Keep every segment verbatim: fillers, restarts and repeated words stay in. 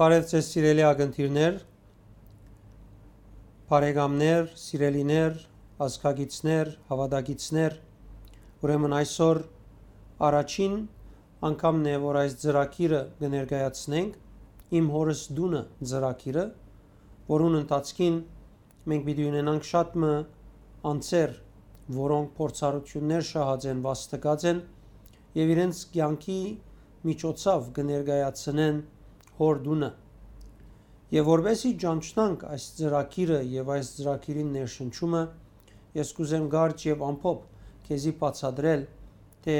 Բարև ձեզ, սիրելի ակնթիրներ, բարեկամներ, սիրելիներ, ազգագիցներ, հաւատակիցներ։ Ուրեմն այսօր առաջին անգամն է, որ այս ծրագիրը կը ներկայացնենք, «Իմ հորս տունը» ծրագիրը, որուն ընթացքին մենք պիտի ունենանք շատ մը անձեր, որոնք փորձառութիւններ շահած են, վաստկած են եւ իրենց կեանքի միջոցով կը ներկայացնեն հոր տունը։ Եւ որպեսզի ճանչնանք այս ծրագիրը եւ այս ծրագիրին ներշնչումը, ես կուզեմ կարճ եւ ամփոփ քեզի բացատրել, թէ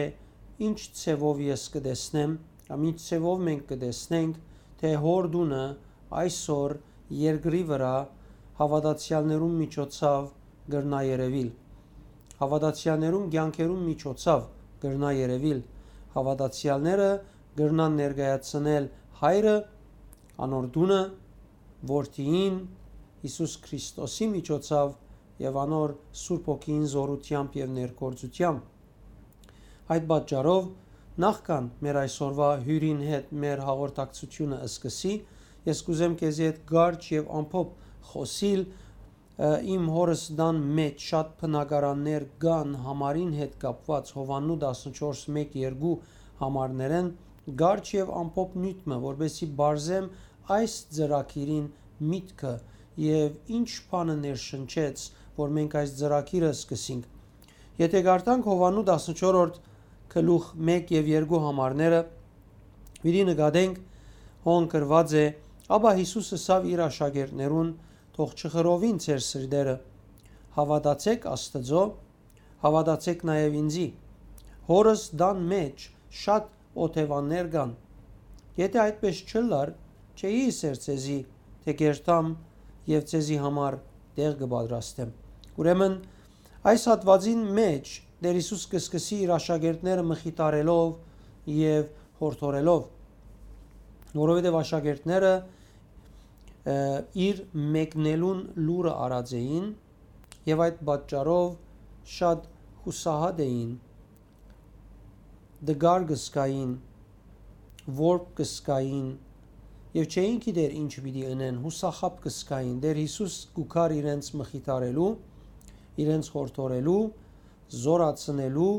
ինչ ձեւով ես կը տեսնեմ, կամ ինչ ձեւով մենք կը տեսնենք, թէ հոր տունը այսօր երկրի վրայ հաւատացեալներուն միջոցով կրնայ երեւիլ։ Հաւատացեալներուն կեանքերուն միջոցով կրնայ երեւիլ։ Հաւատացեալները կրնան ներկայացնել Հայրը, անոր տունը, Որդիին, Յիսուս Քրիստոսի միջոցով եւ անոր Սուրբ Հոգիին զօրութեամբ եւ ներգործութեամբ։ Այդ պատճառով, նախքան մեր այսօրուայ հիւրին հետ մեր հաղորդակցութիւնը սկսի, ես կուզեմ քեզի հետ կարճ եւ ամփոփ խօսիլ, ը, իմ հորս տան մէջ շատ բնակարաններ կան համարին հետ կապուած, Յովհաննու տասնչորս մէկ երկու համարներէն, կարճ եւ ամփոփ նիւթ մը, որպեսզի բարձեմ այս ծրագիրին միտքը եւ ինչ բանը ներշնչեց, որ մենք այս ծրագիրը սկսենք։ Եթէ կարդանք Յովհաննու տասնչորրորդ գլուխ մէկ եւ երկու համարները, պիտի նկատենք, հոն գրուած է. «Ապա Յիսուս ըսաւ իր աշակերտներուն. "Թող չխռովին ձեր սրտերը, հաւատացէք Աստուծոյ, հաւատացէք նաեւ ինծի։ Հորս տան մէջ շատ օթեւաններ կան։ Եթէ այդպէս չըլլար, չէի ըսեր ձեզի, թէ կ'երթամ եւ ձեզի համար տեղ կը պատրաստեմ"։ Ուրեմն, այս հատուածին մէջ Տէր Յիսուս կը սկսի իր աշակերտները մխիթարելով եւ յորդորելով, որովհետեւ աշակերտները, ը, իր մեկնելուն լուրը առած էին եւ այդ պատճառով շատ յուսահատ էին, տկար կը զգային, որբ կը զգային եւ չէին գիտեր ինչ պիտի ընեն, յուսախաբ կը զգային։ Տէր Յիսուս կու գար իրենց մխիթարելու, իրենց յորդորելու, զօրացնելու,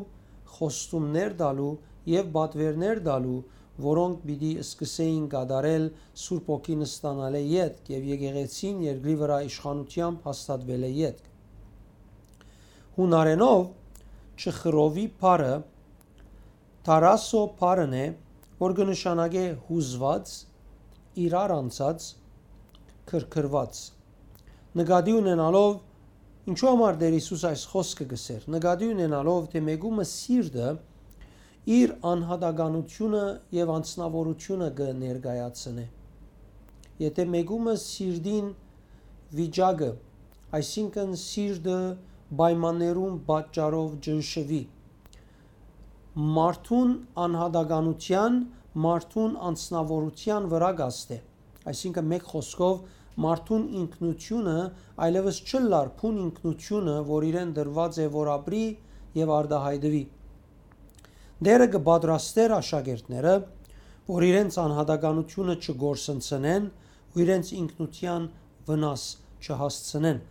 խոստումներ տալու եւ պատուէրներ տալու, որոնք պիտի սկսէին կատարել Սուրբ Հոգին ստանալէ ետք եւ եկեղեցին երկրի վրայ իշխանութեամբ հաստատուելէ ետք։ Յունարէնով «չխռովի» բառը «թարասո» բառն է, որ կը նշանակէ յուզուած, իրար անցած, քրքրուած։ Նկատի ունենալով, ինչու համար Տէր Յիսուս այս խօսքը կ'ըսէր, նկատի ունենալով, թէ մէկու մը սիրտը իր անհատականութիւնը եւ անձնաւորութիւնը կը ներկայացնէ։ Եթէ մէկու մը սիրտին վիճակը, այսինքն սիրտը պայմաններուն պատճառով ճնշուի, մարդուն անհատականութեան, մարդուն անձնաւորութեան վրայ կ'ազդէ։ Այսինքն, մէկ խօսքով, մարդուն ինքնութիւնը այլեւս չըլլար բուն ինքնութիւնը, որ իրեն տրուած է, որ ապրի եւ արտայայտուի։ Տէրը կը պատրաստէր աշակերտները, որ իրենց անհատականութիւնը չկորսնցնեն ու իրենց ինքնութեան վնաս չհասցնեն։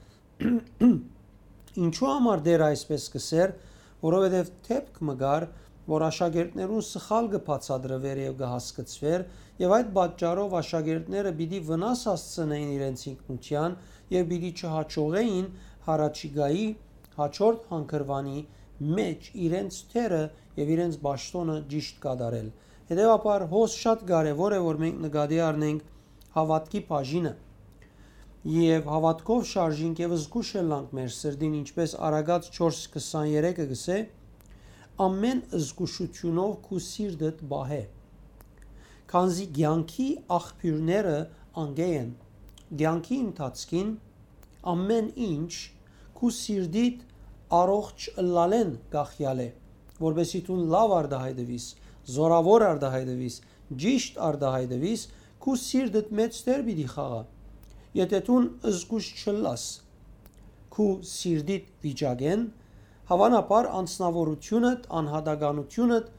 Ինչու համար Տէրը այսպէս կ'ըսէր, որովհետեւ դէպք մը կար, որ աշակերտներուն սխալ կը բացատրուէր եւ կը հասկցուէր, եւ այդ պատճառով աշակերտները պիտի վնաս հասցնեին իրենց ինքնութեան եւ պիտի չհաջողէին յառաջիկայի, հաջորդ հանգրուանի մէջ իրենց դերը եւ իրենց պաշտօնը ճիշտ կատարել։ Հետեւաբար, հոս շատ կարեւոր է, որ մենք նկատի առնենք հաւատքի բաժինը եւ հաւատքով շարժինք եւ զգուշ ըլլանք մեր սրտին, ինչպէս Առակաց չորս քսաներեքը կ'ըսէ. «Ամէն զգուշութիւնով քու սիրտդ պահէ, քանզի կեանքի աղբիւրները անկէ են»։ Կեանքի ընթացքին ամէն ինչ քու սիրտիդ առողջ ըլլալէն կախեալ է, որպեսզի դուն լաւ արտայայտուիս, զօրաւոր արտայայտուիս, ճիշտ արտայայտուիս, քու սիրտդ մէջ դեր պիտի խաղայ։ Եթէ դուն զգուշ չըլլաս քու սիրտիդ վիճակէն, հաւանաբար անձնաւորութիւնդ, անհատականութիւնդ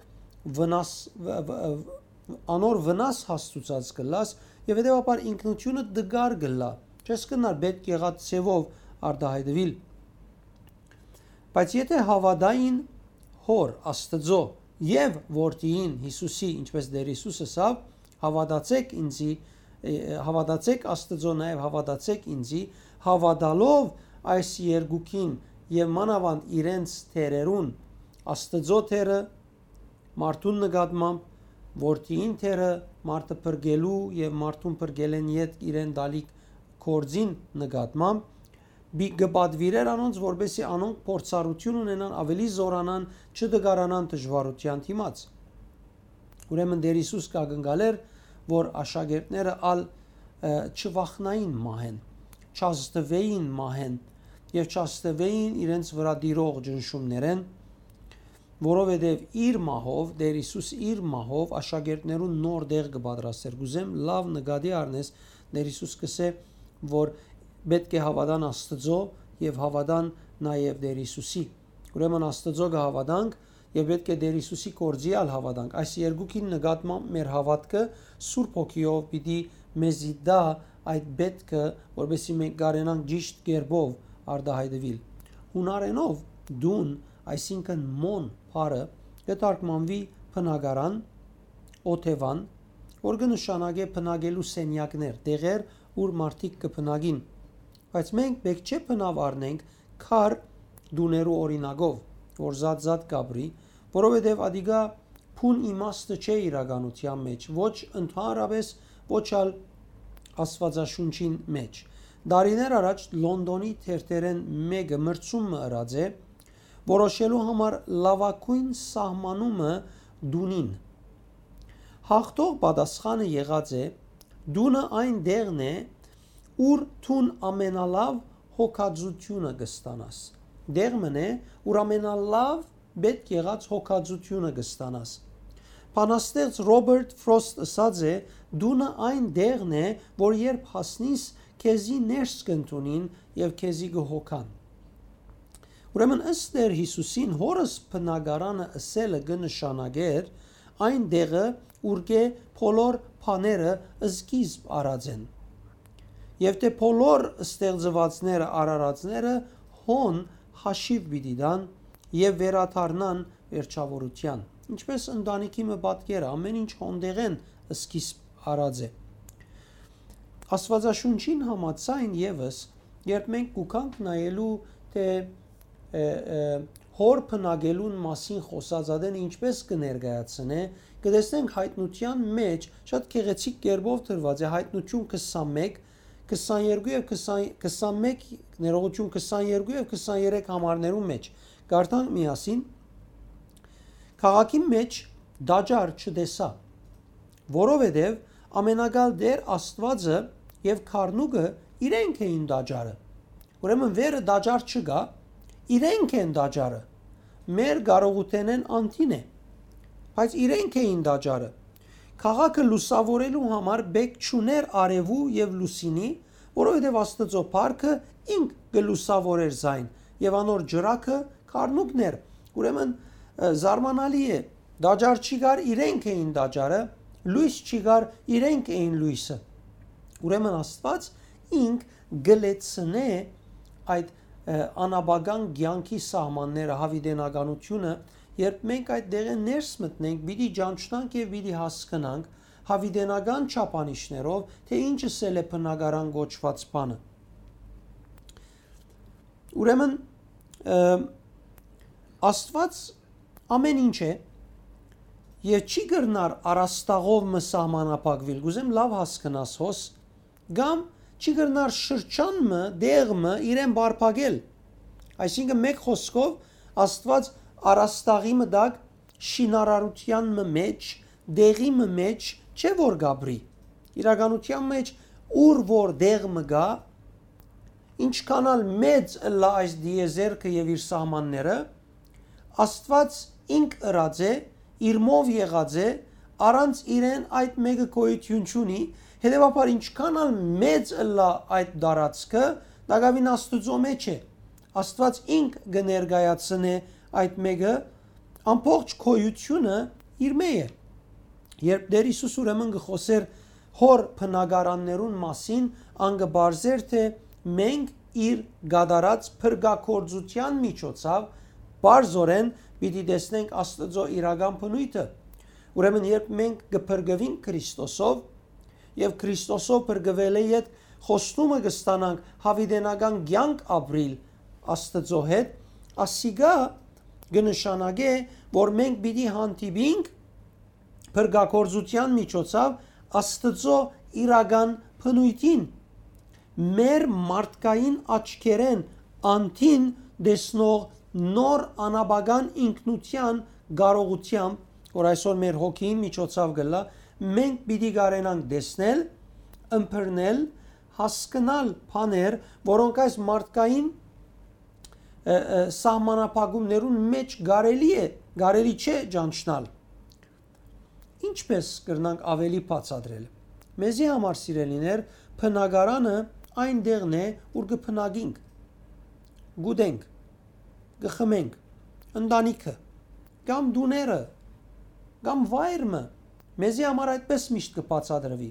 վնաս-, վ-, վ-, անոր վնաս հասցուցած կ'ըլլաս եւ հետեւաբար ինքնութիւնը դգար կ'ըլլայ։ Չես կրնար պէտք եղած ձեւով արտայայտուիլ։ Բայց եթէ հաւատային Հօր Աստուծոյ եւ Որդիին Յիսուսի, ինչպէս Տէր Յիսուս ըսաւ, «Հաւատացէք ինծի, հաւատացէք Աստուծոյ, նաեւ հաւատացէք ինծի», հաւատալով այս երկուքին եւ մանաւանդ իրենց Տէրերուն, Աստուծոյ Տէրը մարդուն նկատմամբ, Որդիին Տէրը մարդը փրկելու եւ մարդուն փրկելէն ետք իրեն տալիք գործին նկատմամբ, կը պատուիրէր անոնց, որպէսզի անոնք փորձառութիւն ունենան, աւելի զօրանան, չտկարանան դժուարութեան դիմաց։ Ուրեմն Տէր Յիսուս կ'ակնկալէր, որ աշակերտները ալ չվախնային մահէն, չազդուէին մահէն եւ չազդուէին իրենց վրայ տիրող ճնշումներէն, որովհետեւ իր մահով, Տէր Յիսուս իր մահով աշակերտներուն նոր տեղ կը պատրաստէր։ Կ'ուզեմ լաւ նկատի առնես, Տէր Յիսուս կ'ըսէ, որ պէտք է հաւատան Աստուծոյ եւ հաւատան նաեւ Տէր Յիսուսի։ Ուրեմն Աստուծոյ կը հաւատանք եւ պէտք է Տէր Յիսուսի գործի ալ հաւատանք։ Այս երկուքին նկատմամբ մեր հաւատքը Սուրբ Հոգիով պիտի մեզի տայ այդ պէտքը, որպեսզի մենք կարենանք ճիշդ կերպով արտայայտուիլ։ Յունարէնով դուն, այսինքն մոն բառը, կը թարգմանուի բնակարան, օթեւան, որ կը նշանակէ բնակելու սենեակներ, տեղեր, ուր մարդիկ կը բնակին։ Բայց մենք պէտք չէ բնաւ առնենք քար տուներու օրինակով, որ զատ-զատ կ'ապրի, որովհետեւ ատիկա բուն իմաստը չէ իրականութեան մէջ, ոչ ընդհանրապէս, ոչ ալ Աստուածաշունչին մէջ։ Տարիներ առաջ Լոնդոնի թերթերէն մէկը մրցում մը ըրած է, որոշելու համար լաւագոյն սահմանումը տունին։ Հաղթող պատասխանը եղած է. «Տունը այն տեղն է, ուր դուն ամենալաւ հոգածութիւնը կը ստանաս»։ Տեղ մըն է, ուր ամենալաւ պէտք եղած հոգածութիւնը կը ստանաս։ Բանաստեղծ Ռոբերտ Ֆրոստ ըսած է. «Տունը այն տեղն է, որ երբ հասնիս, քեզի ներս կ'ընդունին եւ քեզի կը հոգան»։ Ուրեմն, ըստ Տէր Յիսուսին, Հօրս բնակարանը ըսելը կը նշանակէր այն տեղը, ուրկէ բոլոր բաները սկիզբ առած են։ Եւ թէ բոլոր ստեղծուածները, արարածները հոն հաշիւ պիտի տան եւ վերադառնան վերջաւորութեան։ Ինչպէս ընտանիքի մը պատկերը, ամէն ինչ հոն տեղէն սկիզբ առած է։ Աստուածաշունչին համաձայն եւս, երբ մենք կու գանք նայելու, թէ, ը, ը, Հօր բնակելուն մասին խօսած ատեն ինչպէս կը ներկայացնէ, կը տեսնենք Հայտնութեան մէջ շատ գեղեցիկ կերպով դրուած է, Հայտնություն քսանմէկ, քսաներկու եւ քսան, քսանմէկ, ներողություն, քսաներկու եւ քսաներեք համարներու մէջ։ Կարդանք միասին. «Քաղաքի մէջ տաճար չտեսայ, որովհետեւ Ամենակալ Տէր Աստուածը եւ Գառնուկը իրենք էին տաճարը»։ Ուրեմն վերը տաճար չկայ, իրենք են տաճարը։ Մեր կարողութենէն անդին է, բայց իրենք էին տաճարը։ Քաղաքը լուսաւորելու համար պէտք չունէր արեւու եւ լուսինի, որովհետեւ Աստուծոյ փառքը ինք կը լուսաւորէր զայն, եւ անոր ջրակը գառնուկն էր։ Ուրեմն, ը, զարմանալի է, տաճար չի գար, իրենք էին տաճարը, լոյս չի գար, իրենք էին լոյսը։ Ուրեմն Աստուած ինք կը լեցնէ այդ, ը, անաբական կեանքի սահմանները, յաւիտենականությունը, երբ մենք այդ տեղէն ներս մտնենք, պիտի ճանչնանք եւ պիտի հասկնանք յաւիտենական չափանիշներով, թէ ինչ ըսել է բնակարան կոչուած բանը։ Ուրեմն, ը, Աստուած ամէն ինչ է եւ չի կրնար առաստաղով մը սահմանափակուիլ։ Կ'ուզեմ լաւ հասկնաս հոս, կամ չի կրնար շրջան մը, տեղ մը իրեն բարբակել։ Այսինքն, մէկ խօսքով, Աստուած առաստաղի մը տակ, շինարարութեան մը մէջ, տեղի մը մէջ չէ որ կ'ապրի։ Իրականութեան մէջ, ուր որ տեղ մը կայ, ինչքան ալ մեծ ըլլայ այս տիեզերքը եւ իր սահմանները, Աստուած ինք ըրած է, իրմով եղած է, առանց իրեն այդ մէկը գոյութիւն չունի, հետեւաբար ինչքան ալ մեծ ըլլայ այդ տարածքը, տակաւին Աստուծոյ մէջ է։ Աստուած ինք կը ներկայացնէ այդ մէկը, ամբողջ գոյութիւնը իր մէջ է։ Երբ Տէր Յիսուս ուրեմն կը խօսէր հոր բնակարաններուն մասին, ան կը պարզէր թէ մենք իր կատարած փրկագործութեան միջոցաւ պարզօրէն պիտի տեսնենք Աստուծոյ իրական բնոյթը։ Ուրեմն երբ մենք կը փրկուինք Քրիստոսով, եւ Քրիստոսով փրկուելէ յետ խոստումը կը ստանանք յաւիտենական կեանք ապրիլ Աստուծոյ հետ, ասիկա կը նշանակէ, որ մենք պիտի հանդիպինք փրկագործութեան միջոցաւ Աստուծոյ իրական բնոյթին, մեր մարդկային աչքերէն անդին տեսնող նոր անաբական ինքնութեան կարողութեամբ, որ այսօր մեր հոգիին միջոցաւ կ'ըլլայ, մենք պիտի կարենանք տեսնել, ըմբռնել, հասկնալ բաներ, որոնք այս մարդկային, ը, ը, սահմանափակումներուն մէջ կարելի է, կարելի չէ ճանչնալ։ Ինչպե՞ս կրնանք աւելի բացատրել։ Մեզի համար, սիրելիներ, բնակարանը այն տեղն է, ուր կը բնակինք, կ'ուտենք, կը խմենք, ընտանիքը, կամ տուները, կամ վայր մը։ Մեզի համար այդպես միշտ կը բացատրուի։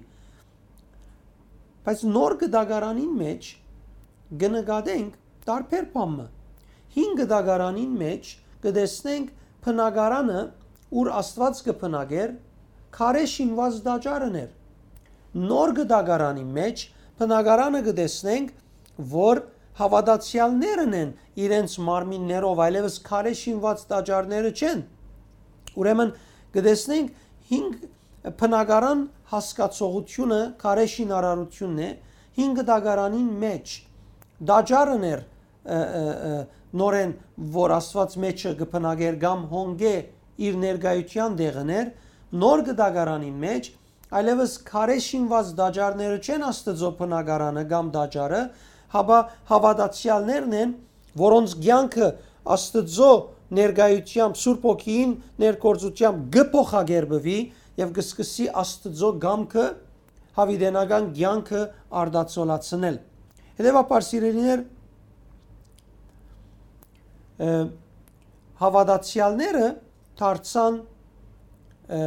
Բայց նոր կտակարանին մէջ կը նկատենք տարբեր բան մը։ Հին կտակարանին մէջ կը տեսնենք բնակարանը, ուր Աստուած կը բնակէր, քարէ շինուած տաճարն էր։ Նոր կտակարանին մէջ բնակարանը կը տեսնենք, որ հաւատացեալներն են իրենց մարմիններով, այլեւս քարէ շինուած տաճարները չեն։ Ուրեմն կը տեսնենք հին բնակարան հասկացողությունը քարէ շինարարությունն է, հին կտակարանին մէջ տաճարն էր, ը, ը, ը, նորէն, որ Աստուած մէջը կը բնակէր կամ հոնկէ իր ներկայութեան տեղն էր, նոր կտակարանին մէջ այլեւս քարէ շինուած տաճարները չեն Աստուծոյ բնակարանը կամ տաճարը, հապա հաւատացեալներն են, որոնց կեանքը Աստուծոյ ներկայութեամբ, Սուրբ Հոգիին ներգործութեամբ կը փոխակերպուի եւ կը սկսի Աստուծոյ կամքը, յաւիտենական կեանքը արտացոլացնել։ Հետեւաբար, սիրելիներ, ը, հաւատացեալները դարձան, ը,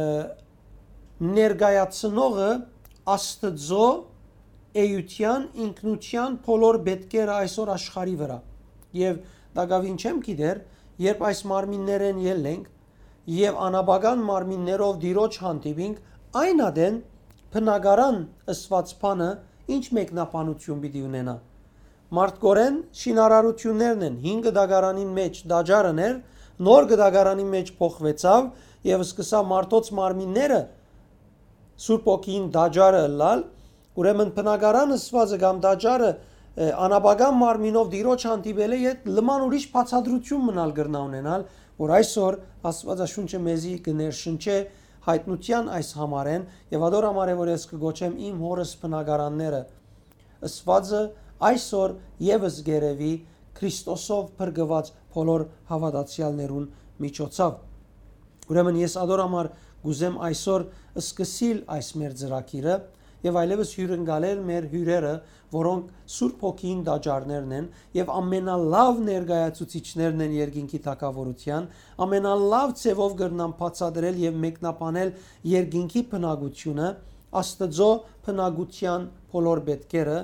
ներկայացնողը Աստուծոյ էութեան, ինքնութեան բոլոր պետքերը այսօր աշխարհի վրայ։ Եւ տակաւին չեմ գիտեր, երբ այս մարմիններէն ելլենք եւ անաբական մարմիններով Տիրոջ հանդիպինք, այն ատեն բնակարան ըսուած բանը ինչ մեկնաբանութիւն պիտի ունենայ։ Մարդկորեն շինարարութիւններն են, հին կտակարանին մէջ տաճարն էր, նոր կտակարանին մէջ փոխուեցաւ եւ սկսաւ մարդոց մարմինները Սուրբ Հոգիին տաճարը ըլլալ, ուրեմն բնակարան ըսուածը կամ տաճարը, ը, անաբական մարմինով Տիրոջ հանդիպելէ յետ լման ուրիշ բացատրութիւն մնալ կրնայ ունենալ, որ այսօր Աստուածաշունչը մեզի կը ներշնչէ յայտնութեան այս համարէն, եւ ադոր համար է, որ ես կը գոչեմ իմ հօրս բնակարանները ըսուածը այսօր եւս կ'երեւի Քրիստոսով փրկուած բոլոր հաւատացեալներուն միջոցաւ։ Ուրեմն ես ադոր համար կ'ուզեմ այսօր սկսիլ այս մեր ծրագիրը եւ այլեւս հիւրընկալել մեր հիւրերը, որոնք Սուրբ Հոգիին տաճարներն են եւ ամենալաւ ներկայացուցիչներն են երկինքի թագաւորութեան, ամենալաւ ձեւով կրնան բացատրել եւ մեկնաբանել երկինքի բնակությունը, Աստուծոյ բնակութեան բոլոր պետքերը,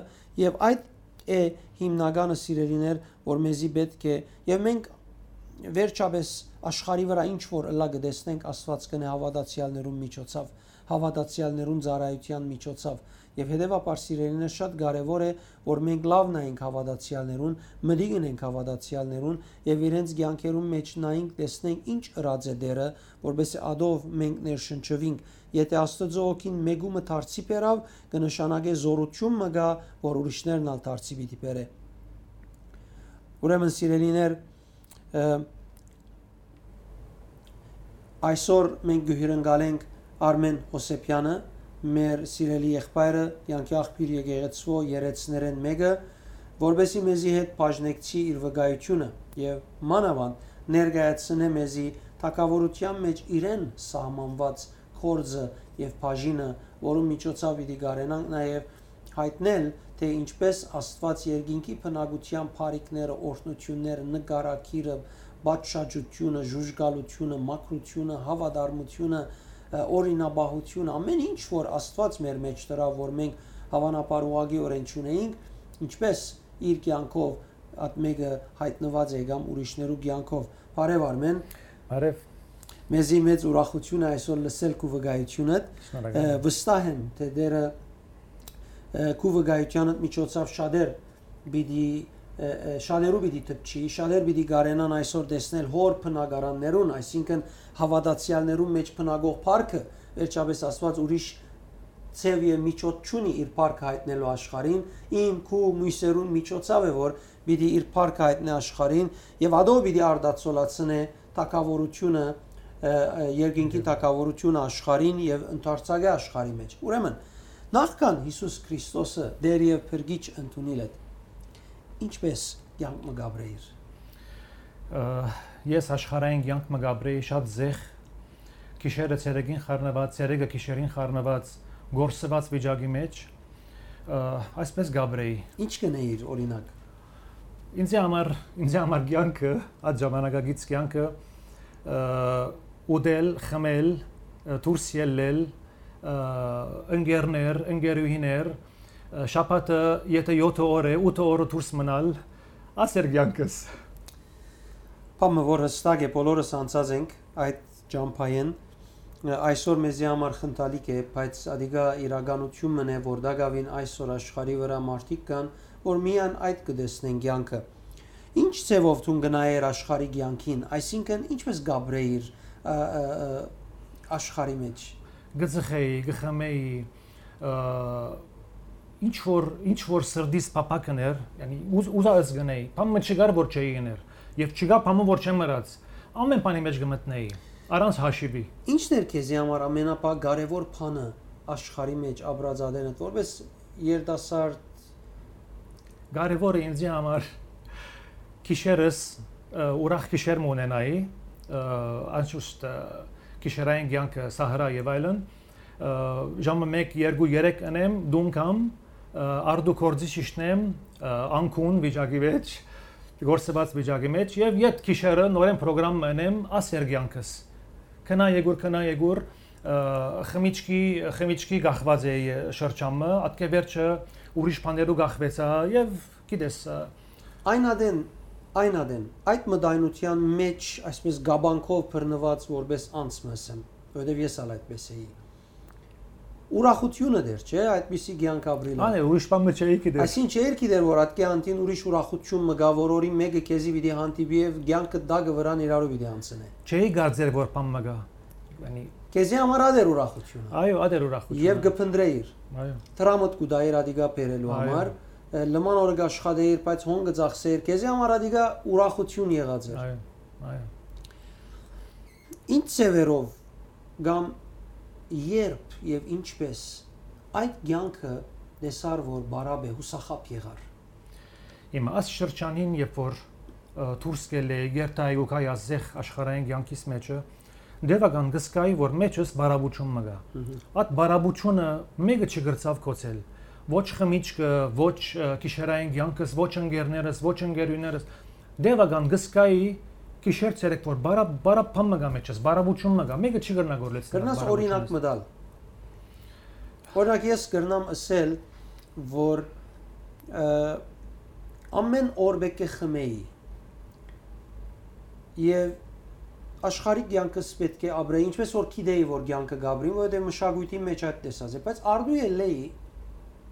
եւ այդ է հիմնականը, սիրելիներ, որ մեզի պետք է, եւ մենք վերջապէս աշխարհի վրայ ինչ որ ըլլայ կը տեսնենք, Աստուած կ'ընէ հաւատացեալներուն միջոցաւ, հաւատացեալներուն ծառայութեան միջոցաւ, եւ հետեւաբար, սիրելիներ, շատ կարեւոր է, որ մենք լաւ նայենք հաւատացեալներուն, մտիկ ընենք հաւատացեալներուն եւ իրենց կեանքերուն մէջ նայենք, տեսնենք ինչ ըրած է Տէրը, որպեսզի ադով մենք ներշնչուինք։ Եթէ Աստուծոյ հոգին մէկու մը դարձի բերաւ, կը նշանակէ զօրութիւն մը կայ, որ ուրիշներն ալ դարձի պիտի բերէ։ Ուրեմն, սիրելիներ, ը, այսօր մենք կը հիւրընկալենք Արմէն Հովսեփեանը, մեր սիրելի եղբայրը, կեանքի աղբիւր եկեղեցւոյ երեցներէն մէկը, որպեսզի մեզի հետ բաժնեկցի իր վկայութիւնը եւ մանաւանդ ներկայացնէ մեզի թագաւորութեան մէջ իրեն սահմանուած գործը եւ բաժինը, որուն միջոցով պիտի կարենանք նաեւ յայտնել, թէ ինչպես Աստուած երկինքի բնակութեան բարիքները, օրհնութիւնները, նկարագիրը, պատշաճութիւնը, ժուժկալութիւնը, մաքրութիւնը, հաւատարմութիւնը, ը, օրինապահություն, ամէն ինչ որ Աստուած մեր մեջ դրաւ, որ մենք հաւանաբար ուղղակիօրէն չունեինք, ինչպէս իր կեանքով այդ մէկը յայտնուած է կամ ուրիշներու կեանքով։ Բարեւ Արմեն։ Բարեւ։ Մեզի մեծ ուրախութիւն է այսօր լսել քու վկայութիւնդ։ Շնորհակալ Ը, եմ։ Վստահ եմ, թէ Տէրը, ը, քու վկայութեանդ միջոցով շատեր պիտի, ը, ը, շատերու պիտի դպչի, շատեր պիտի կարենան այսօր տեսնել հոր բնակարաններուն, այսինքն հաւատացեալներուն մեջ բնակող փառքը, վերջապէս Աստուած ուրիշ ձեւ եւ միջոց չունի իր փառքը յայտնելու աշխարհին, իմ, քու, մոյսերուն միջոցով է, որ պիտի իր փառքը յայտնէ աշխարհին, եւ ատոր պիտի արտացոլացնէ թագաւորութիւնը, ը, ը, երկինքի Ջա։ թագաւորութիւնը աշխարհին եւ ընդարձակէ աշխարհի մեջ։ Ուրեմն, նախքան Յիսուս Քրիստոսը Տէր եւ Փրկիչ ընդունիլդ, ինչպէս կեանք մը կապրէիր։ Ը, ես աշխարհային կեանք մը կապրէի շատ զեղ, գիշերը ցերեկին խառնուած, ցերեկը գիշերին խառնուած, կորսուած վիճակի մեջ, ը, այսպես կապրէի։ Ինչ կ'ընէիր, օրինակ։ Ինձի համար, ինձի համար կեանքը, այդ ժամանակակից կեանքը, ը, ուտել, խմել, ը, դուրս ելլել, ը, ընկերներ, ընկերուհիներ, ը, շաբաթը, եթե յոթը օր է, ութը օրը դուրս մնալ, ասեր կեանքս։ Բան մը, որ հստակ է, բոլորս անցած ենք այդ ճամբայեն, ը, այսօր մեզի համար խնդալիք է, բայց ադիկա իրականութիւն մըն է, որ տակաւին այսօր աշխարհի վրայ մարդիկ կան, որ միայն այդ կը տեսնեն կեանքը։ Ինչ ձևով դուն կնայեր աշխարհի կեանքին, այսինքն ինչպես կապրէիր, ը, ը, ը, աշխարհի մեջ։ Կը ծխէի, կը խմէի, ը, ինչ որ, ինչ որ սրտիս փափաք ընէր, յանի, ուզ-, ուզած կ'ընէի, բան մը չկար որ չէի ըներ, եւ չկայ բան մը որ չեմ ըրած, ամէն բանի մեջ կը մտնէի, առանց հաշիւի։ Ի՞նչն էր քեզի համար ամենապա կարեւոր բանը աշխարհի մեջ ապրած ատենդ, որպես երիտասարդ։ Կարեւորը ինձի համար գիշերս, ը, ուրախ գիշեր մը ունենայի, ը, անշուշտ, ը, գիշերային կեանքը, սահարա եւ այլն, ը, ժամը մեկ, երկու, երեք ընեմ, տուն գամ, ը, արդու գործի շիշնեմ, ը, անկուն վիճակի մեջ, կորսուած վիճակի մեջ, եւ յետ գիշերը նորեն պրոգրամ մը ընեմ, ասեր կեանքս։ Քնա եկուր, քնա եկուր, ը, խմիչքի, խմիչքի կախված էի շրջան մը, ատկէ վերջը ուրիշ բաներու կախվեցայ, եւ գիտես, ը, Այն ատեն, այն ատեն, այդ մտայնութեան մեջ, այսպես, կապանքով բռնուած որպես անձ մը ըսեմ, որովհետեւ ես ալ այդպես էի։ Ուրախութիւնը դեռ չէ, այդպիսի կեանք ապրիլը։ Անե, ուրիշ բան մը չէի գիտեր։ Այսինքն, չէիր գիտեր, որ ատկէ անդին ուրիշ ուրախութիւն մը կայ, որ օրին մէկը քեզի պիտի հանդիպի եւ կեանքը տակը վրան իրարու պիտի անցնէ։ Չէի կարծեր, որ բան մը կայ։ Յանի, Քեզի համար ա դեռ ուրախութիւնը։ Այո, ա դեռ ուրախութիւնը։ Եվ կփնտրեիր։ Այո։ Դրամդ կու տայիր ադիկա բերելու Այո։ համար, ը, լման օրը կաշխատեիր, բայց հոն կը ծախսեիր, քեզի համար ադիկա ուրախութիւն եղած էր։ Այո, այո։ Ինչ ձևերով կամ երբ եւ ինչպես այդ կեանքը տեսար, որ բարապ է, յուսախաբ եղար։ Հիմա այս շրջանին, երբ որ, ը, դուրս կելլեի, երթայի ու գայի ազեղ աշխարհային կեանքիս մեջը, դեւական կսկայի, որ մեջս բարապություն մը կայ։ Մհմ։ Այդ բարապությունը մէկը չկրցաւ կոչել։ Ոչ խմիչքը, ոչ, ը, գիշերային կեանքս, ոչ ընկերներս, ոչ ընկերուներս։ Դեւական կսկայի գիշեր ցերեկ, որ բարա-, բարապ բան մը կայ մեջս, բարապություն մը կայ, մէկը չի կրնա գորլեցնել Կրնաս օրինակ բարապությունս։ մտալ։ Օրինակ, ես կրնամ ըսել, որ, ը, ամեն օր պէտք է խմեի։ Եվ աշխարհի կեանքս պէտք է ապրեի, ինչպես որ գիտեի, որ կեանքը կապրին, որովհետև մշակույթի մեջ այդ տեսած է, բայց արդու ելլեի,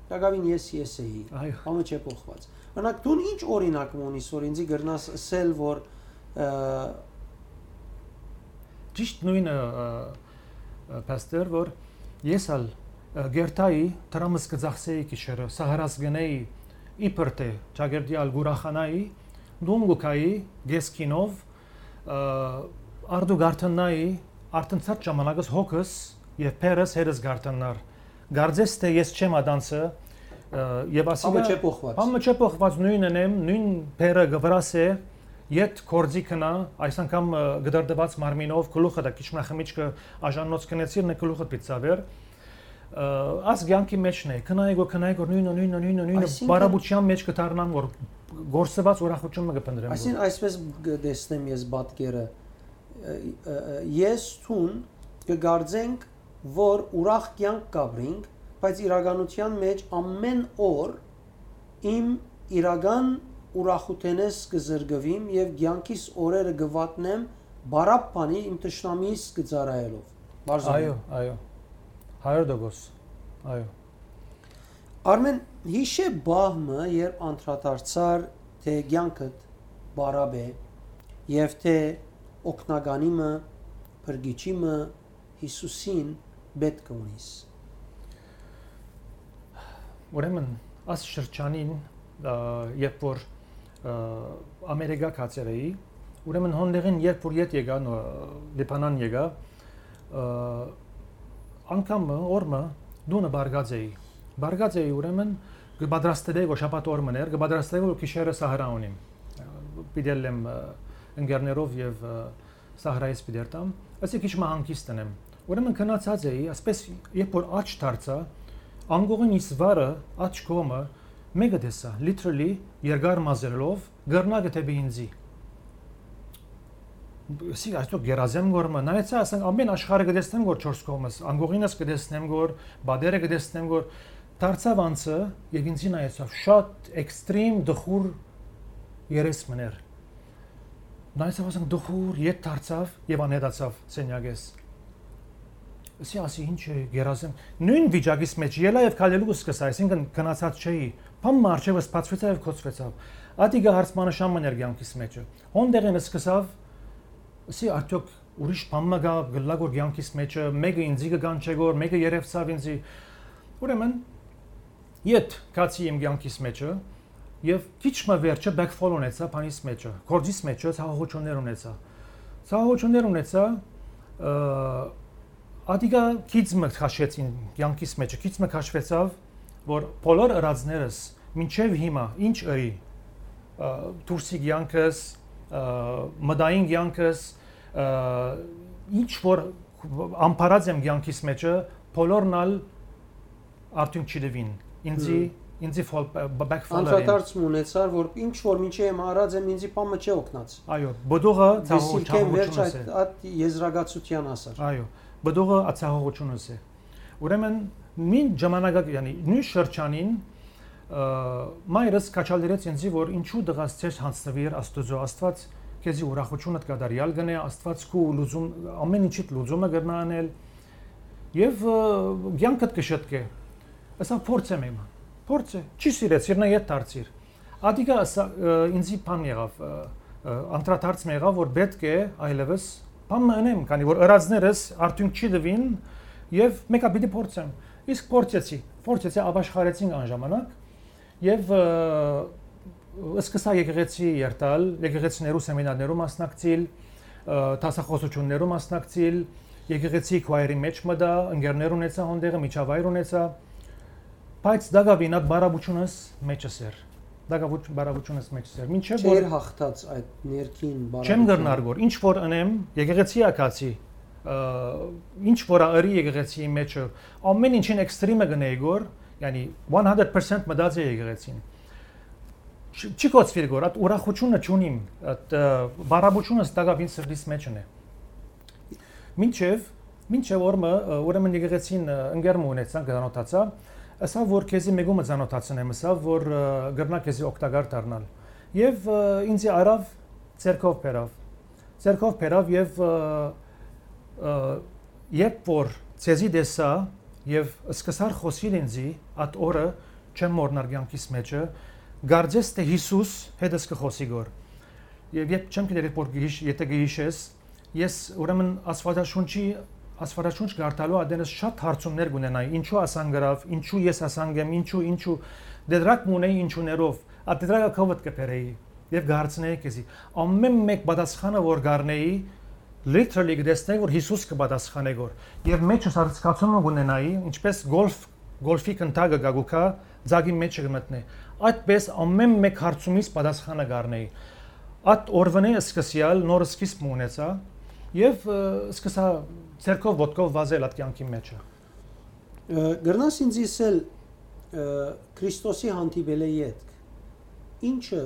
տակավին ես ես էի, Այո։ Համը չէ փոխված։ Օրինակ, դուն ինչ օրինակ մը ունիս, որ ինձի կրնաս ըսել, որ, ը, Ճիշտ նույնը, ը, ը, փաստեր, որ ես ալ, ը, գերտայի դրամս կծախսեի գիշերը, սահարաս գնեի, իբր թե ճակերտի ալ կուրախանայի, դուն գուքայի, գեսքինով, ը, արդու գարթննայի, արդեն ցած ժամանակս հոգս և փերս հերս գարթննար։ Գարձես թե ես չեմ ադանցը, ը, և ասիկա Համը չէ փոխված։ Համը չէ փոխված, նույնն եմ, նույն փերը գվրաս է, յետ կորձի քնա, այս անգամ, ը, գդարդված մարմինով, գլուխը դա քիչ մնա խմիչքը աժաննոց քնեցիր, նե գլուխը պիտ ծավեր, ը, աս կյանքի մեջն է, քնայ գոր, քնայ գոր, նույնը, նույնը, նույնը, նույնը, Այսինքն բարապության մեջ կդառնամ, որ գործված ուրախություն մը կփնտրեմ, Այսին որ այսպես կտեսնեմ ես պատկերը, ը, ը, ը, ես թուն կը կարծենք, որ ուրախ կեանք կ'ապրինք, բայց իրականութեան մէջ ամէն օր իմ իրական ուրախութենէս կը զրկուիմ եւ կեանքիս օրերը կը վատնեմ բարապ բանի իմ թշնամիիս կը ծառայելով։ Բարզովին։ Այո, այո։ Հարիւր տոկոս։ Այո։ Արմեն, յիշե պահ մը, երբ անդրադարձար, թէ կեանքդ բարապ է եւ թէ օգնականի մը, փրկիչի մը, Յիսուսին պէտք կը ունիս։ Ուրեմն, աս շրջանին, ը, երբ որ, ը, Ամերիկա գացեր էի, ուրեմն հոնդեղին երբ որ ետ եկայ, նո-, Լիբանան եկայ, ը, անգամ մը, օր մը, տունը բարգած էի։ Բարգած էի, ուրեմն, կը պատրաստէի, որ շաբաթ օր մըն էր, կը պատրաստէի, որ գիշերը սահրա ունիմ։ Պիտի ելլեմ, ը, ընկերներով եւ, ը, սահրայից պիտի երթամ, ըսի քիչ մը հանգիստ ընեմ։ Ուրեմն գնացած էի, ասպէս երբ որ աջ դարձայ, անկողին իս վարը, աջ կողմը, մէկը տեսայ, literally, երկար մազերով, կռնակը դէպի ինձի։ Ըսի, «Այսօ գերազեմ գոր մը», նայեցայ, ասենք, ամէն աշխարհը կը տեսնեմ գոր չորս կողմս, անկողինս կը տեսնեմ գոր, պատերը կը տեսնեմ գոր, դարձաւ անցը եւ ինձի նայեցաւ, շատ էքստրիմ, տխուր երես մըն էր։ Նայեցաւ, ասենք, տխուր, ետ դարձաւ եւ անհետացաւ սենյակէս։ Ըսի, ասի, «Ինչ է, գերազեմ»։ Նոյն վիճակիս մէջ ելայ եւ քալելու կը սկսայ, այսինքն՝ գնացած չէի։ Բան մը առջեւս բացուեցաւ եւ գոցուեցաւ։ Ատիկա հարցմանշան մը ներ կեանքիս մէջը։ Հոն դեղին սկսաւ, ըսի, արդյոք ուրիշ բան մը կայ, կ'ըլլայ գոր կեանքիս մէջը, մէկը ինձի կը կանչէ գոր, մէկը երեւցաւ ինձի։ Ուրեմն, ետ գացի իմ կեանքիս մէջը, եւ քիչ մը վերջը backfall ունեցայ բանիս մէջը, գործիս մէջը ցաւողութիւններ ունեցայ։ Ցաւողութիւններ ունեցայ, ը, ատիկա քիչ մը քաշեցին կեանքիս մէջը, քիչ մը քաշվեցաւ, որ բոլոր ըրածներս մինչեւ հիմա ինչ ըրի, ը, դուրսի կեանքս, ը, մտային կեանքս, ը, ինչ որ ամբարած եմ կեանքիս մէջը, բոլորն ալ արդյունք չի տուին։ Ինձի, Հմ։ ինձի fall, ը, backfall ըրին։ Անդրադարձ մը ունեցար, որ ինչ որ մինչեւ հիմա արած եմ, ինձի բան մը չի օգնած։ Այո, բդուղը Դեսիլքեն վերջ ցաւողությունս այդ, է։ այդ եզրակացության հասար։ Այո, բդուղը ացահողությունս է։ Ուրեմն, մին ժամանակակ, յանի, նոյն շրջանին, ը, մայրս քաջալերեց ինձի, որ ինչու տղաս չես յանձնուիր Աստուծոյ, Աստուած քեզի ուրախութիւնդ կատարեալ կ'ընէ, Աստուած քու լուծում, ամէն ինչիդ լուծումը կրնայ անել, եւ, ը, կեանքդ կը շտկէ։ Ասա, փորձեմ իմը։ Փորձ է, չի սիրեցիր, նա ետ դարձիր։ Ատիկա ասա, ը, ինձի բան եղաւ, ը, ը, անդրադարձ մը եղաւ, որ պէտք է այլեւս բան մը ընեմ, քանի որ ըրածներս արդյունք չի տուին, եւ մեկը պիտի փորձեմ։ Իսկ փորձեցի, փորձեցի, ապաշխարեցինք այն ժամանակ, եւ, ը, սկսա եկեղեցի երթալ, եկեղեցիներու սեմինարներու մասնակցիլ, ը, դասախոսություններու մասնակցիլ, եկեղեցի քուայրի մէջ մտա, ընկերներ ունեցա հոնդեղը, միջավայր ունեցա, բայց դակաւին այդ բարապությունս մէջս էր, դակավուչ-, բարապությունս մէջս էր, մինչեւ որ Չէր հաղթած այդ ներքին չեմ բարապության։ կրնար գոր, ինչ որ ընեմ, եկեղեցի ակացի, ը, ինչ որ ա ըրի եկեղեցիի մէջը, ամէն ինչին էքստրիմը կ'ընէի գոր, յանի, one hundred percent մտած է եկեղեցին։ Չի, չի կոչուիր գոր, այդ ուրախությունը չունիմ, այդ, ը, բարապությունս տակաւին սրտիս մէջն է։ Մինչեւ, մինչեւ օր մը, ը, ուրեմն եկեղեցին, ը, ընկեր մը ունեցանք, ծանոթացայ, ասա, որ քեզի մեկումը ծանոթացնեմ, ասա, որ, ը, կրնայ քեզի օգտակար դառնալ։ Եւ, ը, ինձի առաւ, ձեռքով բերաւ։ Ձեռքով բերաւ եւ, ը, ը, երբ որ ձեզի տեսայ եւ սկսար խօսիլ ինձի, այդ օրը չեմ մոռնար կեանքիս մէջը, կարծես թէ Յիսուս հետս կը խօսի գոր։ Եւ երբ չեմ գիտեր, որ գիշ-, եթե գիշես, ես ուրեմն Աստվածաշունչի, Աստվածաշունչ կարդալու ատենս շատ հարցումներ կունենայի, ինչու ասան գրավ, ինչու ես ասան գեմ, ինչու, ինչու, դեդրակ մունեի ինչուներով, ա դեդրակը կովդ կը բերեի եւ կհարցնեի քեզի։ Ամեն մեկ պատասխանը որ կառնեի, literally կտեսնեի, որ Յիսուս կը պատասխանե գոր։ Եւ մեջս արձկացումը կունենայի, ինչպես գոլֆ, գոլֆի կնտակը գա գուքա, ձագի մեջը կմտնե։ Այդպես ամեն մեկ հարցումից պատասխանը կառնեի։ Այդ օրվանէ սկսեալ նոր սկիզբ մը ունեցա եւ, ը, սկսա ձեռքով, ոտքով վազել այդ կյանքի մեջը։ Ը, կրնաս ինձ ըսել, ը, Քրիստոսի հանդիպելէ ետք, ինչը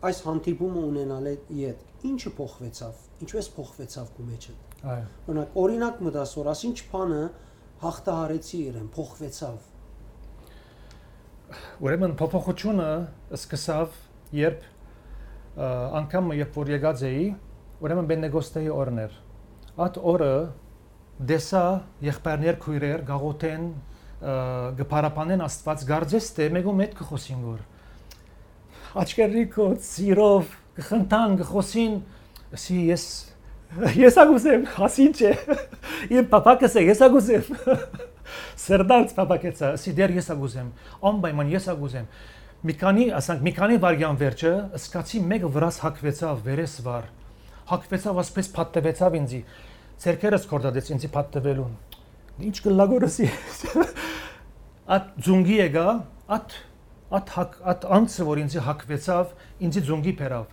Այս հանդիպումը ունենալէ ետք, ի՞նչը փոխուեցաւ, ինչպե՞ս փոխուեցաւ քու մեջդ։ Այո։ Օրինակ, օրինակ մը տաս, որ ասինչ բանը հաղթահարեցի իրեն, փոխուեցաւ։ Ուրեմն փոփոխությունը սկսաւ, երբ, ը, անգամ մը, երբ որ եկած էի, ուրեմն Պենտեկոստեի օրն էր։ Այդ օրը տեսայ եղբայրներ, քոյրեր կ'աղօթեն, ը, կը փառաբանեն Աստուած, կարծես թէ մէկու մէտ կը խօսին, որ աչքերնի կոց, սիրով, կը խնդան, կը խօսին, ասի ես, ես ա կ'ուզեմ, ասի ինչ է, իմ փափակս է, ես ա կ'ուզեմ։ Սրտանց փափակեցայ, ասի դեռ ես ա կ'ուզեմ, անպայման ես ա կ'ուզեմ։ Մի քանի, ասանք, մի քանի վայրկեան վերջը, սկացի մէկը վրաս հակուեցաւ, վերես վար, հակուեցաւ, ասպէս փաթթուեցաւ ինձի, ձեռքերս կորտատեց ինձի փաթթուելուն։ Ինչ կ'ըլլայ, որ ասի։ Այդ ձունկի եկայ, այդ, այդ հակ-, այդ անձը, որ ինձի հակուեցաւ, ինձի ձունկի բերաւ։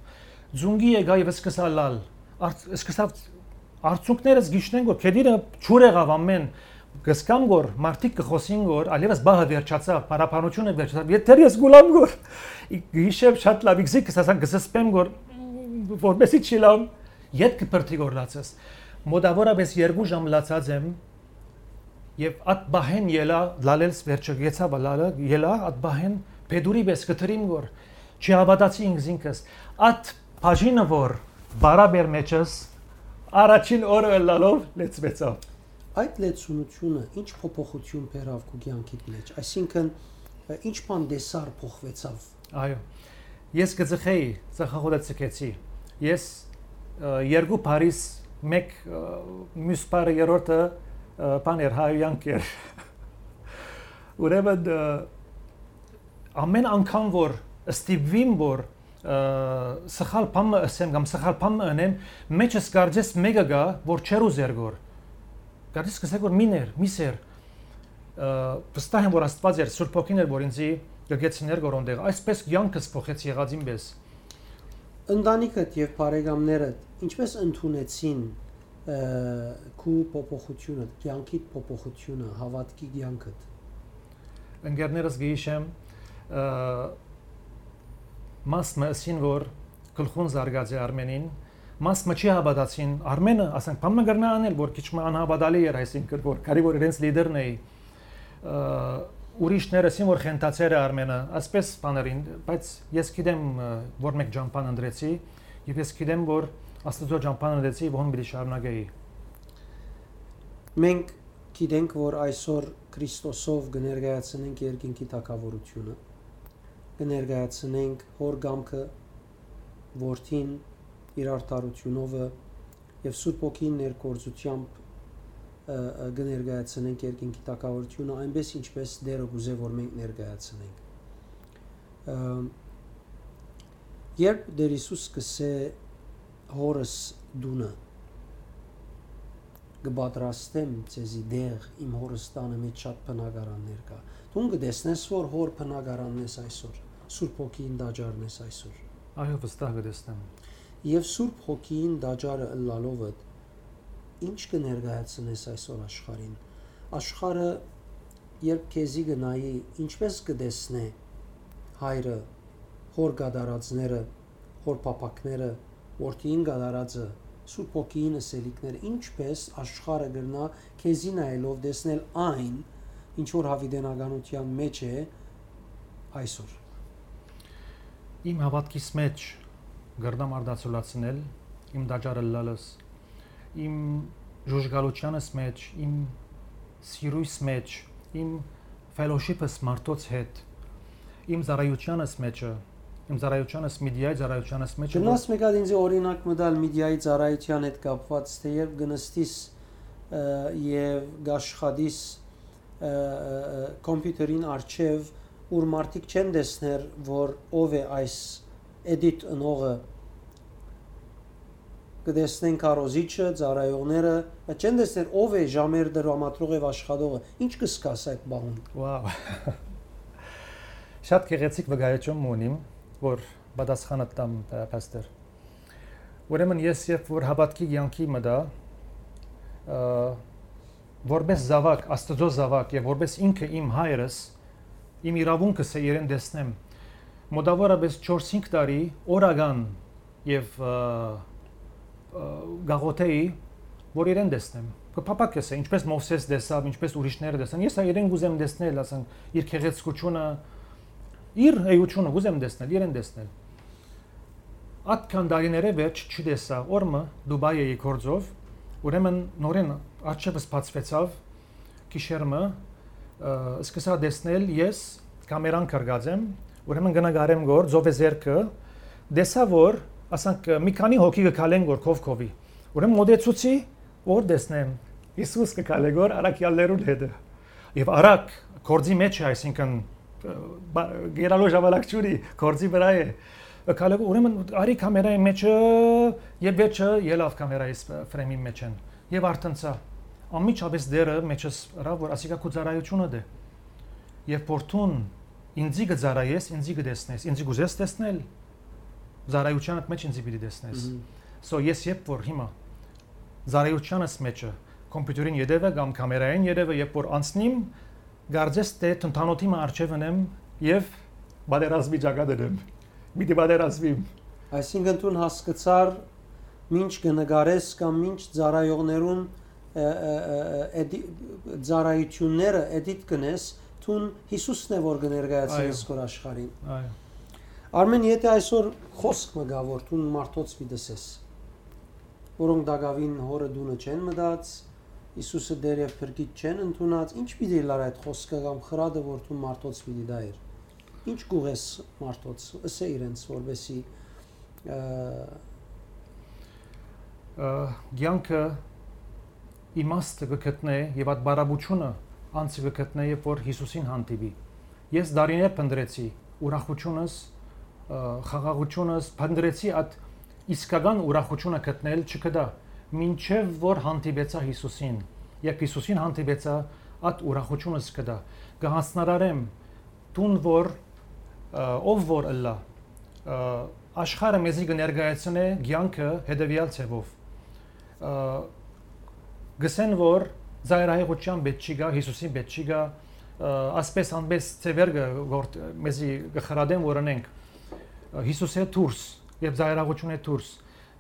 Ձունկի եկայ եւ սկսա լալ։ Արդ-, սկսաւ, արցունքներս գիշնեն, որ քեդիրը ջուր եղաւ ամէն, կ'զգամ, որ մարդիկ կը խօսին, որ այլեւս բահը վերջացաւ, փառաբանությունը վերջացաւ, եթէ ես գուլամ, որ գիշեր շատ լաւ, իքզի կ'սասան, կ'սսպեմ, որ որպեսի չի լամ, ետքը բրդի, որ լացես։ Մոտավորապես երկու ժամ լացած եմ, եւ այդ բահեն ելա, լալելս վերջը գեցա, լալը ելա, այդ բահեն փետուրի պես կտրիմ, որ չի հավատացի ինքզինքս։ Այդ բաժինը, որ բարաբեր մեջս, առաջին օրը ըլլալով լեցվեցաւ։ Այդ լեցունությունը ի՞նչ փոփոխություն բերաւ քու կեանքիդ մէջ, այսինքն, ը, ի՞նչ բան տեսար փոխուեցաւ։ Այո։ Ես կը ծխեի, ծխախոտը ծխեցի։ Ես, ը, երկու բարիս, մեկ, ը, մյուս բարը, երրորդը, ը, բան էր, հայոյանք էր։ Ուրեմն, ը, ամէն անգամ, որ ստիպուիմ, որ, ը, սխալ բան մը ըսեմ կամ սխալ բան մը ընեմ, մեջս կարծես մէկը գայ, որ չեր ուզեր գոր։ Կարծես կ'ըսէ, որ մի ներ, մի սեր, ը, վստահ եմ, որ Աստուած էր, Սուրբ Հոգին էր, որ ինձի կը գեցիներ գոր ոնտեղ։ Այսպես կեանքս փոխեց եղածին պես։ Ընտանիքդ եւ բարեկամներդ ինչպե՞ս ընդունեցին, ը, քու փոփոխությունը, կեանքիդ փոփոխությունը, հաւատքի կեանքդ։ Ընկերներս կը յիշեմ, ը, մաս մը ըսին, որ գլխուն զարգած է Արմենին, մաս մը չի հաւատացին Արմենը, ասենք, բան մը կրնայ անել, որ քիչ մը անհաւատալի էր, այսինքն, որ կարի որ իրենց լիդերն էի, ը, ուրիշներ ըսին, որ խենթացեր է Արմենը, այսպես բաներին, բայց ես գիտեմ, ը, որ մէկ ճամբան ընտրեցի, եւ ես գիտեմ, որ Աստուծոյ ճամբան ընտրեցի, եւ հոն պիտի շարունակեի։ Մենք գիտենք, որ այսօր Քրիստոսով կը ներկայացնենք երկինքի թագաւորությունը, կը ներկայացնենք Հօր կամքը, Որդին, իր արդարութիւնովը եւ Սուրբ Հոգին ներգործութեամբ, ը, ը, կը ներկայացնենք երկինքի թագաւորությունը, այնպես ինչպես Տերը կ'ուզէ, որ մենք ներկայացնենք։ Ը, երբ Տեր Յիսուս կ'ըսէ, «Հօրս տունը կը պատրաստեմ ձեզի տեղ, իմ Հօրս տանը մէջ շատ բնակարաններ կայ»։ Դուն կը տեսնես, որ Հօր բնակարանն ես այսօր, Սուրբ Հոգիին տաճարն ես այսօր։ Այո, վստահ կը տեսնեմ։ Եւ Սուրբ Հոգիին տաճարը ըլլալովդ, ի՞նչ կը ներկայացնես այսօր աշխարհին։ Աշխարհը, երբ քեզի կը նայի, ինչպե՞ս կը տեսնէ հայրը, Հօր կատարածները, Հօր փափաքները, Որդիին կատարածը, Սուրբ Հոգիին ըսելիքները, ինչպե՞ս աշխարհը կրնայ քեզի նայելով տեսնել այն, ինչ որ յաւիտենականութեան մէջ է այսօր։ Իմ հաւատքիս մէջ կրնամ արտացոլացնել իմ տաճարը ըլլալս, իմ ժուժկալութեանս մէջ, իմ սիրոյս մէջ, իմ fellowship-ս մարդոց հետ, իմ ծառայութեանս մէջը, իմ ծառայութեանս, Միդիայի ծառայութեանս մէջը, որ Կրնաս մէկ հատ ինձի օրինակ մը տալ Միդիայի ծառայութեան հետ կապուած, թէ երբ կը նստիս, ը, եւ կ'աշխատիս, ը, ը, ը, կոմպիութերին առջեւ, ուր մարդիկ չեն տեսներ, որ ով է այս էդիտ ընողը, կը տեսնեն քարոզիչը, ծառայողները, բայց չեն տեսներ ով է ժամեր դրամատրող եւ աշխատողը։ Ինչ կը զգաս այդ բանուն։ Wow։ Շատ գեղեցիկ վկայություն մը ունիմ, որ պատասխանը տամ, ը, փաստեր։ Ուրեմն ես երբ որ հաւատքի կեանքի մտա, ը, որպես զաւակ, Աստուծոյ զաւակ եւ որպես ինքը իմ հայրս, իմ իրաւունքս է իրեն տեսնեմ։ մոտավորապես չորս-հինգ տարի օրական եւ, ը, ը, գաղութեի, որ իրեն տեսնեմ։ Կը փափակես է, ինչպես Մովսէս տեսաւ, ինչպես ուրիշները տեսան։ Ես ա իրեն կուզեմ տեսնել, ասենք, իր գեղեցկությունը, իր էությունը կուզեմ տեսնել, իրեն տեսնել։ Ատքան տարիներէ վերջ չի տեսայ, օր մը Դուբայ էի գործով, ուրեմն նորէն արջևս բացուեցաւ գիշեր մը, ը, սկսա տեսնել ես, կամերան կրկած եմ, ուրեմն կը նկարեմ գոր, ծովեզերքը, տեսայ որ, ասանք, մի քանի հոգի կը քալեն գոր քով քովի, ուրեմն մոտեցուցի, որ տեսնեմ, Յիսուս կը քալէ գոր առաքեալներուն հետը։ Եւ արագ, գործի մեջ է, այսինքն, ը, բա-, գերալու ժամանակ չունի, գործի վրայ է։ Քալեգո, ուրեմն, արի կամերայի մեջը, եւ վերջը ելաւ կամերայի ս-, ֆրեմին մեջ են։ Եւ արդեն սա, անմիջապես դերը մեջս ըրաւ, որ ասիկա քու ծառայությունը դէ։ Երբ որ դուն ինձի կը ծառայես, ինձի կը տեսնես, ինձի կ'ուզես տեսնել, ծառայությանդ մեջ ինձի պիտի տեսնես։ Մհմ։ So, ես երբ որ հիմա ծառայությանս մեջը, կոմպիուտերին ետևը կամ կամերային ետևը, երբ որ անցնիմ, կարծես թէ թնդանոթի մը առջեւ ընեմ եւ պատերազմի ճակատ ընեմ։ Միտի պատերազմիմ։ Այսինքն դուն հասկցար, մինչ կը նկարես կամ մինչ ծառայողներուն, ը, ը, ը, ը, էդի-, ծառայությունները էդիտ կնես, դուն Յիսուսն է որ կը ներկայացնես Այո։ Քոր աշխարհին։ Այո։ Արմեն, եթե այսօր խոսք մը գայ, որ դուն մարդոց պիտի ըսես, որոնք տակաւին հորը տունը չեն մտած, Յիսուսը Տէր եւ Փրկիչ չեն ընդունած, ի՞նչ պիտի ըլլար այդ խոսքը կամ խրատը, որ դու մարդոց պիտի տայր։ Ի՞նչ կ'ուղես մարդոց, ըսէ իրենց, որպեսզի, ը, Ը, կեանքը իմաստը կը գտնէ եւ այդ բարապությունը անձը կը գտնէ, երբ որ Յիսուսին հանդիպի։ Ես տարիներ փնտռեցի ուրախությունս, ը, խաղաղությունս, փնտռեցի այդ իսկական ուրախությունը գտնել, չգտա, մինչեւ որ հանդիպեցայ Յիսուսին։ Երբ Յիսուսին հանդիպեցայ, այդ ուրախությունս գտայ։ Կը յանձնարարեմ, դուն որ, ը, ով որ ըլլայ, ը, աշխարհը մեզի կը ներկայացնէ կեանքը հետեւեալ ձեւով։ Ը, կ'ըսեն, որ ծայրահեղութեան պէտք չի գայ, Յիսուսին պէտք չի գայ, ը, ասպէս անպէս ձեւեր կը գործ-, մեզի կը խրատեն, որ ընենք, ը, Յիսուսէ դուրս եւ ծայրահեղութիւնէ դուրս։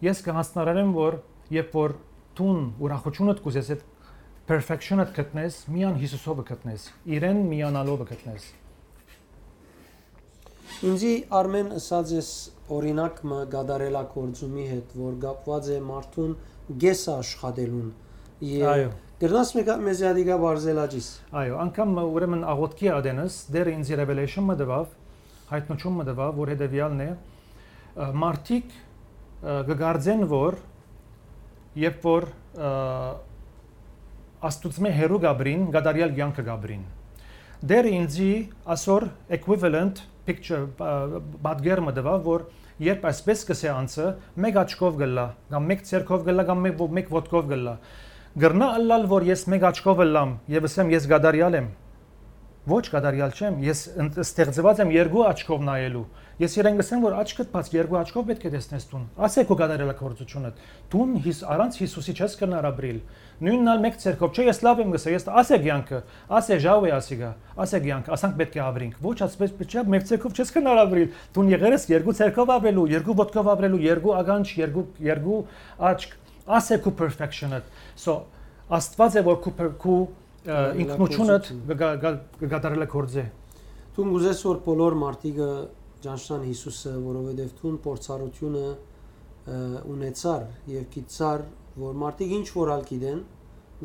Ես կը յանձնարարեմ, որ երբ որ դուն ուրախութիւնդ կ'ուզես, այդ perfection-դ գտնես, միան Յիսուսովը գտնես, իրեն միանալովը գտնես։ Ինձի Արմեն ըսած ես օրինակ մը կատարելագործումի հետ, որ կապուած է մարդուն կեսը աշխատելուն։ Ե-, Այո։ կրնաս մեկը մեզի ադիկա բարձելաճիս։ Այո, անգամ, ուրեմն, աղոթքի ատենս, Տէրը ինձի revelation մը տուաւ, յայտնություն մը տուաւ, որ հետեւեալն է, ը, մարդիկ, ը, կը կարծեն, որ երբ որ, ը, Աստուծմէ հեռու կ'ապրին, կատարեալ կեանքը կ'ապրին։ Տէրը ինձի ասոր equivalent picture, ը, պատկեր մը տուաւ, որ երբ այսպես կ'ըսէ անձը, մեկ աչքով կ'ըլլայ, կամ մեկ ձեռքով կ'ըլլայ, կամ մեկ, ո-, մեկ ոտքով կ'ըլլայ։ Կրնա ըլլալ, որ ես մեկ աչքով ըլլամ եւ ըսեմ, ես կատարեալ եմ։ Ոչ, կատարեալ չեմ, ես ըն-, ստեղծուած եմ երկու աչքով նայելու։ Ես իրեն կ'ըսեմ, որ աչքդ բաց, երկու աչքով պէտք է տեսնես դուն։ Ասէ քու կատարելագործությունդ։ Դուն Յիս-, առանց Յիսուսի չես կրնար ապրիլ։ Նոյնն ալ մեկ ձեռքով, չէ, ես լաւ եմ կ'ըսեմ, ես, ասէ կեանքը, ասէ ժաու է ասիկա, ասէ կեանքը, ասանք պէտք է ապրինք։ Ոչ, ասպես չէ, մեկ ձեռքով չես կրնար ապրիլ։ Դուն եղեր ես երկու ձեռքով ապրելու, երկու ոտքով ապրելու, երկու ականջ, երկու, երկու աչք, ասէ քու perfection-դ։ So, Աստուած է, որ քու per-, քու, ը, ինքնությունդ կը գա-, գա-, կը կատարելագործէ։ Դուն կ'ուզես, որ բոլոր մարդիկը ճանչնան Յիսուսը, որովհետեւ դուն փորձառությունը, ը, ունեցար եւ գիտցար, որ մարդիկ ինչ որ ալ գիտեն,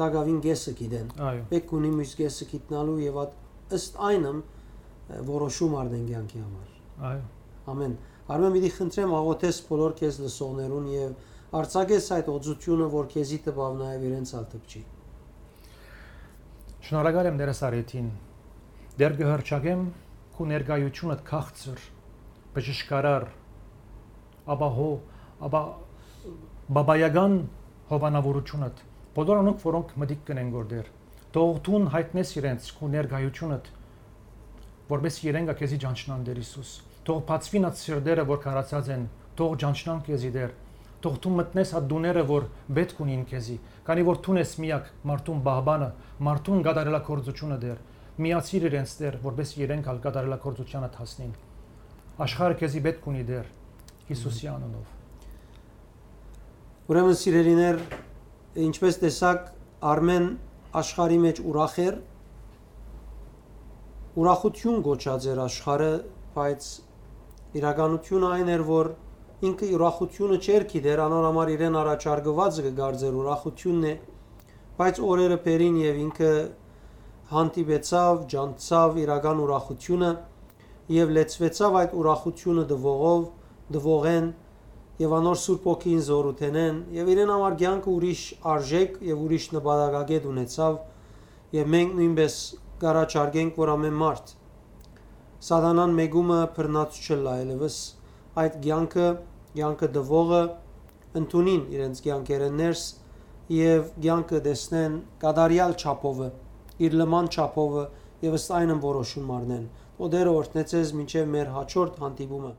տակաւին կեսը գիտեն։ Այո։ Պէտք ունի մյուս կեսը գիտնալու եւ այդ ըստ այնմ, ը, որոշում առնեն կեանքի համար։ Այո։ Ամեն։ Արմեն, պիտի խնդրեմ, աղոթես բոլոր քեզ լսողներուն եւ արձակես այդ օծությունը, որ քեզի տպաւ, նաեւ իրենց ալ տպչի։ Շնորհակալ եմ Տէրս Արեթին։ Տէր, կը հռչակեմ քու ներկայությունդ քաղցր, բժշկարար, ապահո-, ապա-, բաբայական հովանավորությունդ, բոլոր անոնք, որոնք մտիկ կ'ընեն գոր Տէր, թող դուն յայտնես իրենց քու ներկայությունդ, որպեսզի իրենք ա քեզի ճանչնան, Տէր Յիսուս։ Թող բացուին այդ սիրտերը, որ քարացած են, թող ճանչնան քեզի, Տէր։ Թող դու մտնես այդ տուները, որ պէտք ունին քեզի, քանի որ դուն ես միակ մարդուն պահպանը, մարդուն կատարելագործությունը, Տէր։ Միացիր իրենց, Տէր, որպեսզի իրենք ալ կատարելագործությանդ հասնին։ Աշխարհը քեզի պէտք ունի, Տէր, Յիսուսի անունով։ Ուրեմն, սիրելիներ, ինչպես տեսաք, Արմէն աշխարհի մէջ ուրախ էր, ուրախութիւն կոչած էր աշխարհը, բայց իրականութիւնը այն էր, որ ինքը ուրախութիւնը չէր գիտեր, անոր համար իրեն առաջարկուածը կը կարծէր ուրախութիւնն է, բայց օրերը բերին եւ ինքը հանդիպեցաւ, ճանչցաւ իրական ուրախութիւնը եւ լեցուեցաւ այդ ուրախութիւնը տուողով, տուողէն եւ անոր Սուրբ Հոգին զօրութենէն եւ իրեն համար կեանքը ուրիշ արժէք եւ ուրիշ նպատակակետ ունեցաւ եւ մենք նոյնպէս կ'առաջարկենք, որ ամէն մարդ սատանան մեկումը բռնած չըլլայ ելեւս այդ կեանքը, կեանքը տուողը ընդունին իրենց կեանքերէն ներս եւ կեանքը տեսնեն կատարեալ չափովը, իր լման չափովը եւ ըստ այնն որոշում առնեն։ Օտերը օրհնեցես մինչեւ մեր հաջորդ հանդիպումը։